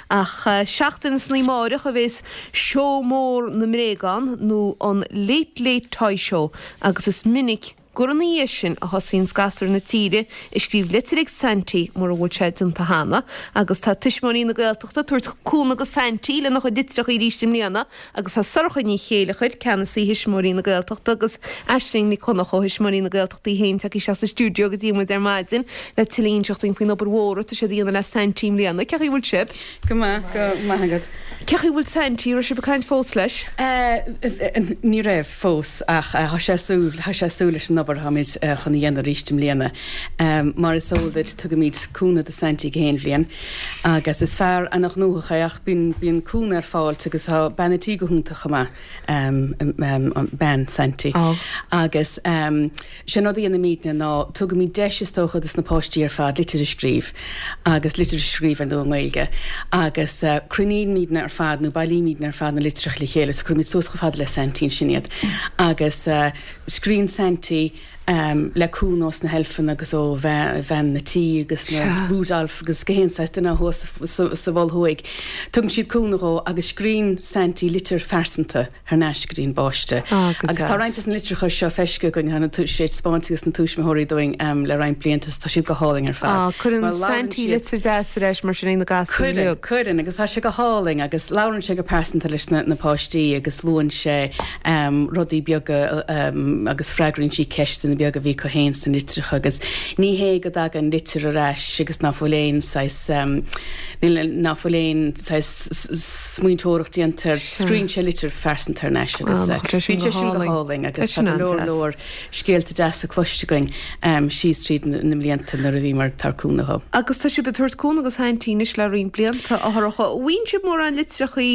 Ach seachtain san amáireach a bhéas Seó Mór na mBréagán nó an Late Late Toy Show agus is minic gur ina dhiaidh sin a thosaíonns gasúir na tíre ag scríobh litir ag Saintí mura bhfuil sé déanta cheana agus tá Tuismitheoirí na Gaeltachta ag tabhairt cúnamh go Saintí lena chuid litreacha arís i mbliana agus tá Sorcha Ní Chéileachair, Ceannasaí Thuismitheoirí na Gaeltachta agus Aisling Nic Chonchúir ó Thuismitheoirí na Gaeltachta í féin tagtha isteach sa stiúideo go dtí muid ar maidin le tuilleadh a inseacht dúinn faoin obair mhór atá siad a dhéanamh le Saintí i mbliana. Cén chaoi a bhfuil sibh? Go maith, go maith agat. Cén chaoi a bhfuil Saintí? Raibh sibh ag caint fós leis? Ní raibh fós ach tá sé ag súil, tá sé ag súil leis an obair atáimid chun a dhéanamh arís i mbliana. Mar is eol duit tugaimid cúnamh do Saintí gach aon bhliain agus is fear ana-ghnóthach é ach bíonn, bíonn cúnamh ar fáilt agus tá bean a' tí go hiontach chomh maith, bean Saintí. Agus. Sé an rud a dhéanaimidne ná tugaimid deis is dócha dos na páistí ar fad litir a scríobh agus litir a scríobh ar ndóigh i nGaeilge agus cruinnímidne ar fad nó bailímidne ar fad na litreacha le chéile so cuirimid suas chomh fada le Saintí ansin iad agus scríonn Saintí le cúnamh ós na heilfeanna agus ó bhean na tí agus na Rudolph agus gach aon saghas duine thuas sa Mhol Thuaidh. Tugann siad cúnamh dhó agus scríonn Saintí litir phearsanta. thar n-ais go dtí an bpáiste. Agus tá roinnt des na litreacha seo feiscithe againn, tá sé spáinte ages na tuismitheoirí dúinn le roinnt blianta is tá siad go hálainn ar fad. Cuireann Saintí litir deas ar ais mar sin ag na gasúir uilig. Cuireann, cuireann agus tá sé go hálainn agus labhrann sé go pearsanta leis na páistí agus luann sé rudaí beaga agus freagraíonn sí ceisteanna beaga a bhí acu féin sna litreacha agus ní hé go dtagann litir ar ais agus ná fuil aon saghas Níl, ná fuil aon saghas smaointeoireacht déanta air. Scríonn sé litir phearsanta thar n-ais agus bíonn sé sin go hálainn agus tá go leor leor scéalta deasa cloiste againn síos tríd na mblianta nuair a bhíomar ag tabhairt cúnamh dhó. Agus tá sibh ag tabhairt cúnamh do Saintí anois le roinnt blianta, a Shorcha. Bhfaigheann sibh mórán litreachaí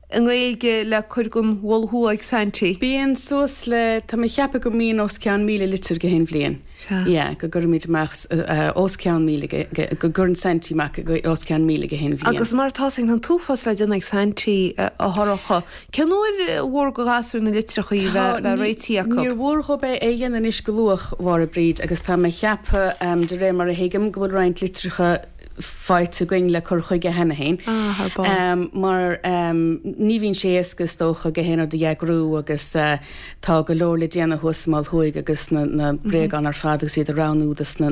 i nGaeilge le cur gon Mhol Thuaidh ag Saintí? Bíonn suas le, tá mé ag ceapadh go mbíonn os cionn 1,000 litir gach aon bhliain. Sea. Yeah, go gcuirimid amach os cionn 1,000, go gcuireann Saintí amach os cionn 1,000 gach aon bhliain. Agus mar atá 's againn, tá an t-uafás le déanamh ag Saintí, a Shorcha. Cén uair a mhór go ghasúir na litreachaí a bheith réitithe acu? Níor mhór dhób é a dhéanamh anois go luath, a Mháire Bríd, agus tá mé ag ceapadh, de réir mar a thuigim, go bhfuil roinnt litreacha faighte againn le cur chuige cheana féin. Ah, thar barr. Mar ní bhíonn sé éasca is dócha gach aon rud a eagrú agus tá go leor le déanamh thuas sa Mol Thuaidh agus na bréagáin ar fad agus iad a roghnú dos na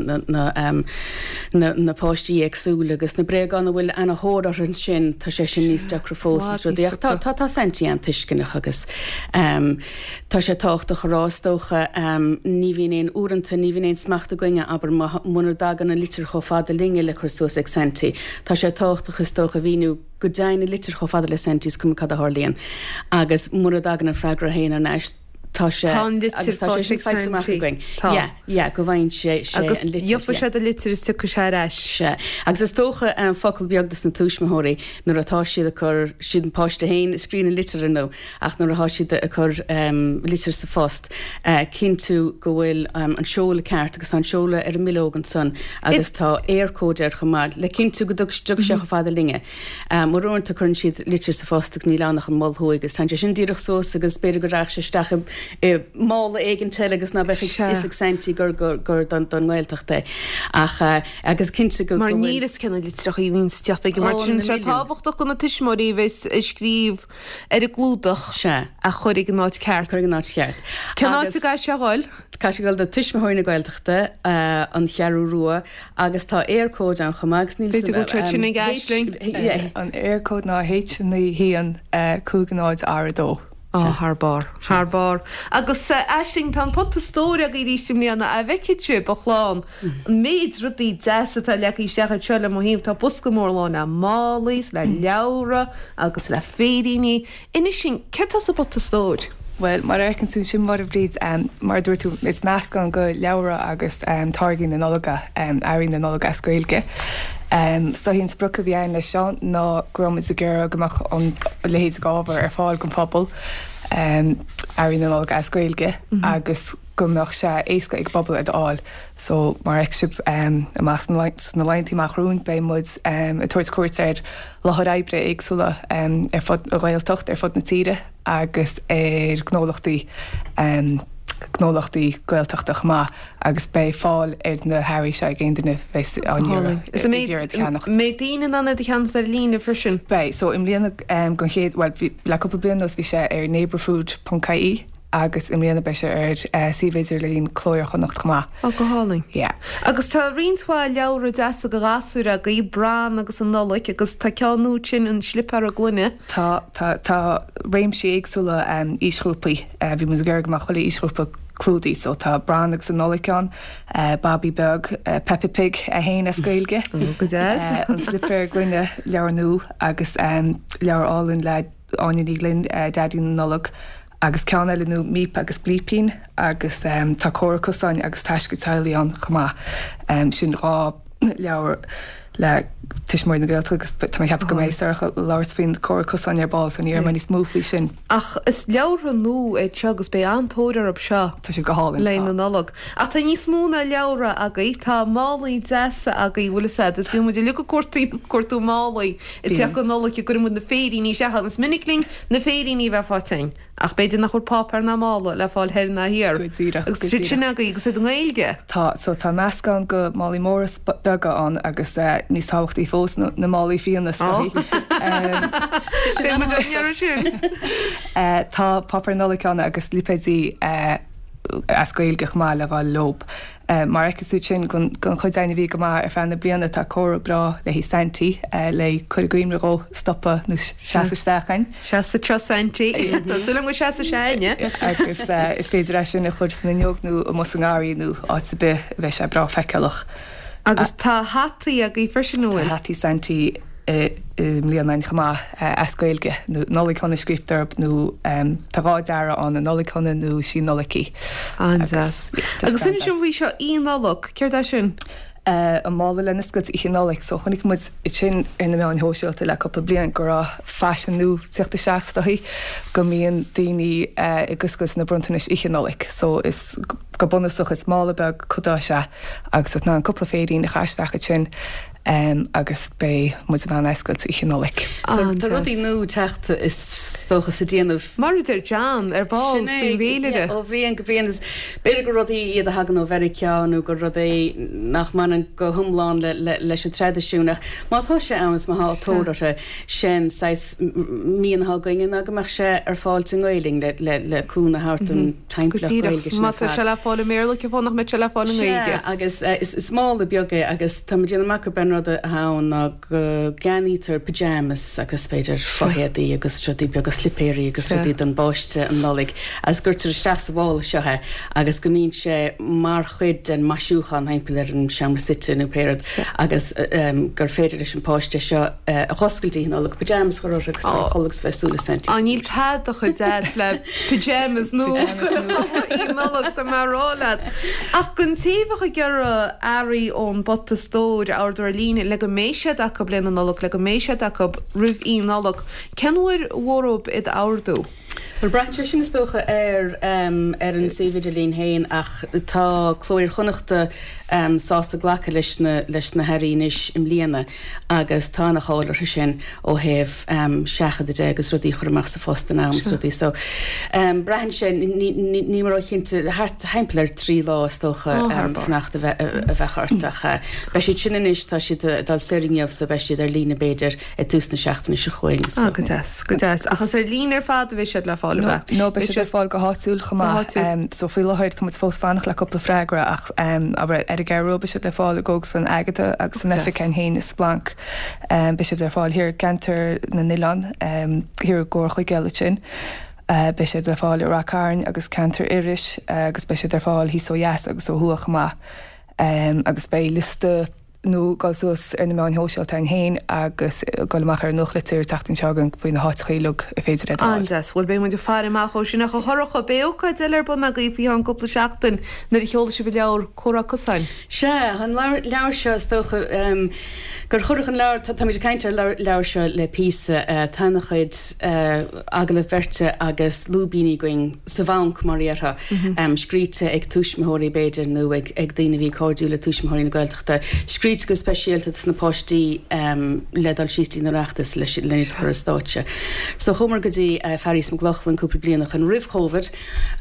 páistí éagsúla agus na bréagáin a bhfuil ana-thóir orthu ansin tá sé sin níos deacra fós is rudaí ach tá tá Saintí an-tuisceanach agus Tá sé tábhachtach a rá, is dócha, ní bhíonn aon, uaireanta, ní bhíonn aon smacht againne, abair, muna dtagann an litir chomh fada linne le cur suas ag Saintí. Tá sé tábhachtach, is dócha, a mhíniú go dtéann an litir chomh fada le Saintí, is cuma cad a tharlaíonn. Agus mura dtagann an freagra féin thar n-ais, tá sé, Tá an litir agus tá sé faighte sin ag faighte amach Saintí. againn. Tá. Yeah, yeah, go bhfaigheann sé, sé Agus an litir, gheobhaidh yeah. sé do litir is tiocfaidh sé ar ais. Sea. Agus is dócha, focal beag dos na tuismitheoirí, nuair atá siad ag cur, siad an páiste féin a scríonn an litir, ar ndóigh, Ach nuair atá siad ag cur litir sa phost, cinntiú go bhfuil an seoladh ceart agus tá an seoladh ar an mbileog ansan agus tá Eircode air chomh maith le cinntiú go dtiocfaidh sé chomh fada linne. Mar uaireanta cuireann siad litir sa phost agus níl ann ach an Mol Thuaidh agus téann sé sin díreach suas agus b'fhéidir go rachadh sé isteach i mála éigint eile agus ná beadh a fhios ag Saintí gur gur don nGaeltacht é. Ach agus cinnte go Mar bhfuil. níl fhios cé na litreacha a bhíonn ag teacht chuige mar Ó, sin na tá sé milliúin. tábhachtach do na tuismitheoirí a bheas ag scríobh ar an gclúdach Sea. a chur ag an áit ceart. Cur ag an áit cheart. Cén áit a gcaithfidh sé a dhul? Caithfidh sé a dhul do Tuismitheoirí na Gaeltachta, An Cheathrú Rua, agus tá Eircode ann chomh maith agus níl B'fhéidir go bhfuil sé sin ag Aisling. An Eircode ná H9 1 5 0 R2. Á, thar barr. Thar barr. Agus Aisling, tá an pota stóir agaibh arís i mbliana. A bhfeicfidh sibh, a chlann, an méid rudaí deasa atá leagtha isteach anseo le mo thaobh. Tá bosca mór lán le málaí is le leabhra agus le féiríní. Inis dúinn, céard tá sa bpota stóir? Bhuel, mar a fheiceann tú ansin, a Mháire Bhríd, mar a dúirt tú, is meascán de leabhra agus táirgí na Nollag, earraí na Nollag as Gaeilge. Is dóichí an sprioc a bhí againn leis seo ná go raibh muid ag iarraidh go mbeadh an leithéid d'ábhar ar fáil don phobal, earraí na Nollag as Gaeilge, agus go mbeadh sé éasca ag an bpobal iad a fháil. So, mar a fheicfidh sibh amach sna laethanta amach romhainn, beidh muid ag tabhairt cuairt ar láthair oibre éagsúla ar fud an Ghaeltacht, ar fud na tíre agus ar gnólachtaí. gnólachtaí Gaeltachta chomh maith agus beidh fáil ar na hearraí seo ag aon duine a bheas á n-iarraidh Is an iad a cheannacht. mbeidh daoine in ann iad a cheannacht ar líne freisin? Beidh. So i mbliana don chéad, bhuel bhí, le cúpla bliain anuas bhí sé ar neighbourfood ponc ie agus i mbliana beidh sé ar suíomh idirlín Cló Iar-Chonnacht chomh maith. Ó, go hálainn. Yeah. Agus tá roinnt mhaith leabhra deasa do ghasúir agaibh, Bran agus an Nollaig, agus tá ceann nua sin, An Slipéar Gloine. Tá, tá, tá réimsí éagsúla aoisghrúpaí. Bhí muid ag iarraidh go mbeadh chuile aoisghrúpa clúdaithe so tá Bran agus an Nollaig ann, Babaí Beag, Peppa Pig é féin as Gaeilge, Go deas. An Slipéar Gloine, leabhar nua agus leabhar álainn le Áine Ní Ghlinn, Daidí na Nollag agus ceann eile nua Míp agus Blípín agus tá Comhrá Cosáin agus Taisce Teaghlaigh ann chomh maith. Sin 2 leabhar le Tuismitheoirí na Gaeltachta agus tá mé ag ceapadh go mbeidh Sorcha ag labhairt faoin Comhrá Cosáin ar ball so ní déarfaidh mé níos mó faoi sin. Ach is leabhartha nua iad seo agus beidh an-tóir orthu seo. Tá siad go hálainn, le na Nollag. Ach tá níos mó ná leabhra agaibh, tá málaí deasa agaibh, bhfuil fhios a'd, is bíonn muid uilig ag cuartú, cuartú málaí ag teacht go Nollaig a gcuireann muid na féiríní isteach ann. Is minic linn na féiríní a bheith faighte againn. Ach b'fhéidir nach bhfuil páipéar ná mála le fáil thoir ná thiar. Go díreach, Agus go tá siad sin díreach. agaibh agus iad i nGaeilge. Tá, so tá meascán de málaí móra 's beaga ann agus níos tábhachtaí fós na na málaí fíona is dóichí. Beidh muid á n-iarraidh sin. Tá páipéar Nollag ann agus lipéidí as Gaeilge chomh maith le dhul leob. Mar a fheiceas tú ansin don chuid againn a bhí go maith ar feadh na bliana, tá comhartha breá le haghaidh Saintí le cur i gcuimhne dhó stopadh nó seasamh isteach againn. Seas anseo Saintí. Tá súil agam go seasfaidh sé againne. Agus is féidir é sin a chur san fhuinneog nó amuigh sa ngarraí nó áit ar bith a bheidh sé breá feiceálach. Agus tá hataí agaibh freisin, an bhfuil? Tá hataí Saintí i mbliana againn chomh maith, as Gaeilge, nó Nollaig Shona scríobhta orthu, nó tá 2 dearadh ann, an Nollaig Shona nó Sí Nollaig í. An-deas. Agus inis dom faoi seo, Oíche Nollag, céard é sin? An mála le n-oscailt Oíche Nollag. So chonaic muid sin ar na meáin shóisialta le cúpla bliain go raibh faisean nua ag teacht isteach is dóichí, go mbíonn daoine ag oscailt na bronntanais Oíche Nollag. So is go bunúsach is mála beag codás é agus tá tú in ann cúpla féirín a chaitheamh isteach ansin. agus beidh muid in ann é a oscailt Oíche Nollag. Tá rudaí nua ag teacht is dócha sa déanamh. Mar a deir John ar ball Sin é, faoin bhféilire. ó bhliain go bliain. Is b'fhéidir gur rudaí iad a thagann ó Mheiriceá nó gur rud é nach mbaineann go hiomlán leis an traidisiún ach má tá sé ann is má tá tóir orthu, sin saghas mian atá againne ná go mbeadh sé ar fáil i nGaelainn le cúnamh a thabhairt don Go timpeallacht díreach. Gaeilge sin Má ar tá fad. sé le fáil i mBéarla, cén fáth nach mbeadh sé le fáil i Sea, nGaeilge? agus is mála beag é agus tá mé ag déanamh amach gurb é an rud atá ann ná go gceannaítear pyjamas agus b'fhéidir fo-éadaí agus rudaí beaga, slipéirí agus Sea. rudaí don bpáiste an Nollaig agus cuirtear isteach sa mhála seo é agus go mbíonn sé mar chuid den maisiúchán thimpeall ar an seomra suite nó pé rud agus gur féidir leis an páiste seo a dh'oscailt Oíche Nollag, pyjamas a chur orthu agus dul a chodladh agus bheith ag súil le Saintí Á, níl tada chomh deas le Pyjamas nua Oíche Nollag, tá mé a rá leat. Ach don té a bheadh ag iarraidh earraí ón bPota Stóir a ordú ar líne le go mbeidh siad acu le na Nollag, le go mbeidh siad acu roimh Oíche Nollag, cén uair ba mhór dhóibh iad a ordú? Bhuel, braitheann sé sin is dócha ar ar an suíomh idirlín féin ach tá Cló Iar-Chonnachta sásta glacadh leis na leis na hearraí anois i mbliana agus tá ana-cháil orthu sin ó thaobh seachadadh de agus rudaí a chur amach sa phost in am is rudaí so braitheann sé, níl mé róchinnte, thart thimpeall ar thrí lá is dócha fanacht a bheadh ort ach beidh siad sin anois, tá siad ag dul soir inniu so beidh siad ar líne b'fhéidir ag tús na seachtaine seo chugainn so. Go deas, go deas. Ach is ar líne ar fad a bheidh siad le fáil, ab ea? No, beidh siad ar fáil go háitiúil chomh maith. So faoi láthair tá muid fós fanacht le cúpla freagra ach abair ar an gCeathrú Rua beidh siad le fáil i gCógaslann Agatha agus san oifig féin i Splanc. Beidh siad ar fáil thiar i gceantar na nOileán, thiar i gComhar Chuigéal ansin. Beidh siad le fáil i Rath Cairn agus ceantar Iorrais agus beidh siad ar fáil thíos ó dheas agus ó thuaidh chomh maith. Agus beidh liosta nua ag dul suas ar na meáin shóisialta againn féin agus ag dul amach ar an nuachtlitir an tseachtain seo chugainn faoi na háiteacha uilig ar féidir iad a fháil. An-deas. Bhuel, beidh muid ag faire amach dhó sin. Ach a Shorcha, beidh ócáid eile ar bun agaibh faoi cheann cúpla seachtain nuair a sheolfaidh sibh an leabhar Comhrá Cosáin. Sea, an leabhar seo, is dócha gur cuireadh an leabhar, táimid ag caint ar an leabhar seo le píosa, tá ana-chuid agallamh beirte agus lúibíní againn sa bhanc, mar a dhéarfá, scríte ag tuismitheoirí b'fhéidir nó ag daoine a bhí cairdiúil le Tuismitheoirí na Gaeltachta, scríte. scríte go speisialta dos na páistí le dul síos dtí an Oireachtas leis len iad a chur ar stáitse. So chuamar go dtí Fearghas Mac Lochlainn cúpla bliain ó shoin roimh Covid,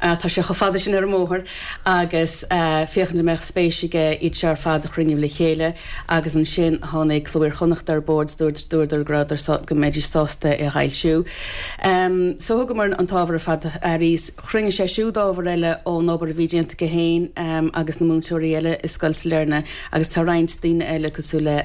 tá sé chomh fada sin ar an mbóthar, agus féachaint an mbeadh spéis aige iad seo ar fad a chruinniú le chéile agus ansin tháinig Cló Iar-Chonnachta ar bord is dúirt dúradar go rabhadar sá go mbeidís sásta é a fhoilsiú. So thugamar an t-ábhar ar fad do Fhearghas. Chruinnigh sé siúd ábhar eile ón obair a bhí déanta aige féin agus na múinteoirí eile i Scoil Sailearna agus tá roinnt daoine eile cosúil le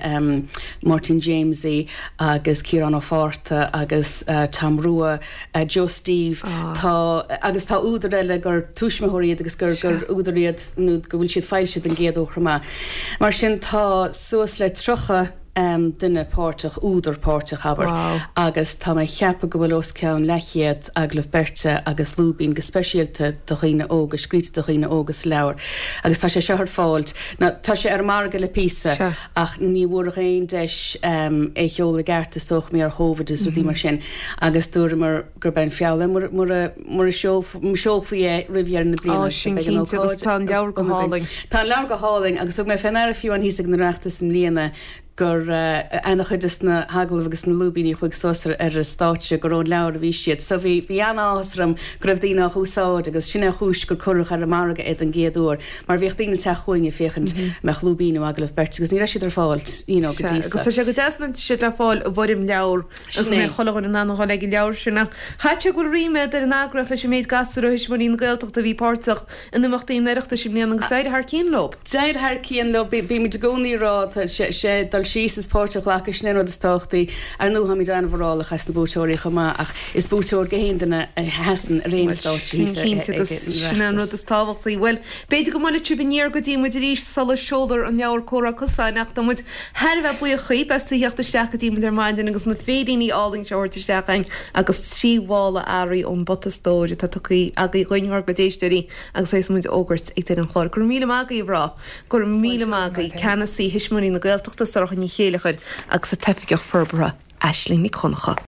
Máirtín Jamesie agus Ciarán Ó Fátharta agus Tom Rua, Joe Steve, tá agus tá údair eile gur tuismitheoirí iad agus gur gur údair iad nó go bhfuil siad foilsithe den gcéad uair chomh maith. Mar sin tá suas le 30 duine páirteach, údar páirteach, abair, agus tá mé ag ceapadh go bhfuil os cionn leathchéad agallamh beirte agus lúibín go speisialta do dhaoine óga, scríte do dhaoine óga sa leabhar agus tá sé seo ar fáil, now tá sé ar an margadh le píosa ach ní bhfuaireadh aon deis é a sheoladh i gceart is dócha mar gheall ar Covid agus rudaí mar sin agus dúramar gurb é an feall é mura mura seolfaí é roimh dheireadh na bliana. Á, sin cinnte agus tá an leabhar go hálainn. Tá an leabhar go hálainn agus thug mé fé ndeara fiú amháin thíos ag an Oireachtas i mbliana gur ana-chuid des na hagallaimh agus na lúibíní a chuaigh suas ar an stáitse gur ón leabhar a bhí siad. So bhí bhí an-áthas orm go raibh daoine á úsáid agus sin é an chúis gur cuireadh ar an margadh é don gcéad uair mar bhíodh daoine ag teacht chugainn ag féachaint an mbeadh lúibín nó agallamh beirte agus ní raibh siad ar fáil you know go dtí so. Agus tá sé go deas go bhfuil siad le fáil i bhfoirm leabhar Agus go mbeidh chuile dhuine in ann a dhul ag an leabhar sin. Ach caithfidh sé go bhfuil ríméad ar an eagraíocht leis an méid gasúr ó Thuismitheoirí na Gaeltachta a bhí páirteach in imeachtaí an Oireachtais i mbliana agus d'éirigh thar cionn leo. D'éirigh thar cionn leo. Bímid i gcónaí ag rá, tá sé dul síos is páirt a ghlacadh, sin é an rud is tábhachtaí. Ar ndóigh, táimid an-mhórálach as na buaiteoirí chomh maith ach is buaiteoir gach aon duine a sheasann ar aon stáitse thíos ag an Oireachtas. Sin é an rud is tábhachtaí. Bhuel, b'fhéidir go mbuailfidh sibh aniar go dtí muid arís sula seolfar an leabhar Comhrá Cosáin ach tá muid Thar a bheith buíoch dhaoib as a theacht isteach go dtí muid ar maidin agus na féiríní álainn seo a thabhairt isteach againn agus 3 mhála earraí ón bPota Stóir atá tugtha agaibh dhuinn ár gcuid éisteoirí agus a bheas muid a fhógairt ag deireadh an chláir. Go raibh míle maith agaibh a mhná. Go raibh míle maith agaibh. Ceannasaí Thuismitheoirí na Gaeltachta, Sorcha Ní Chéileachair agus an tOifigeach Forbartha, Aisling Nic Dhonncha.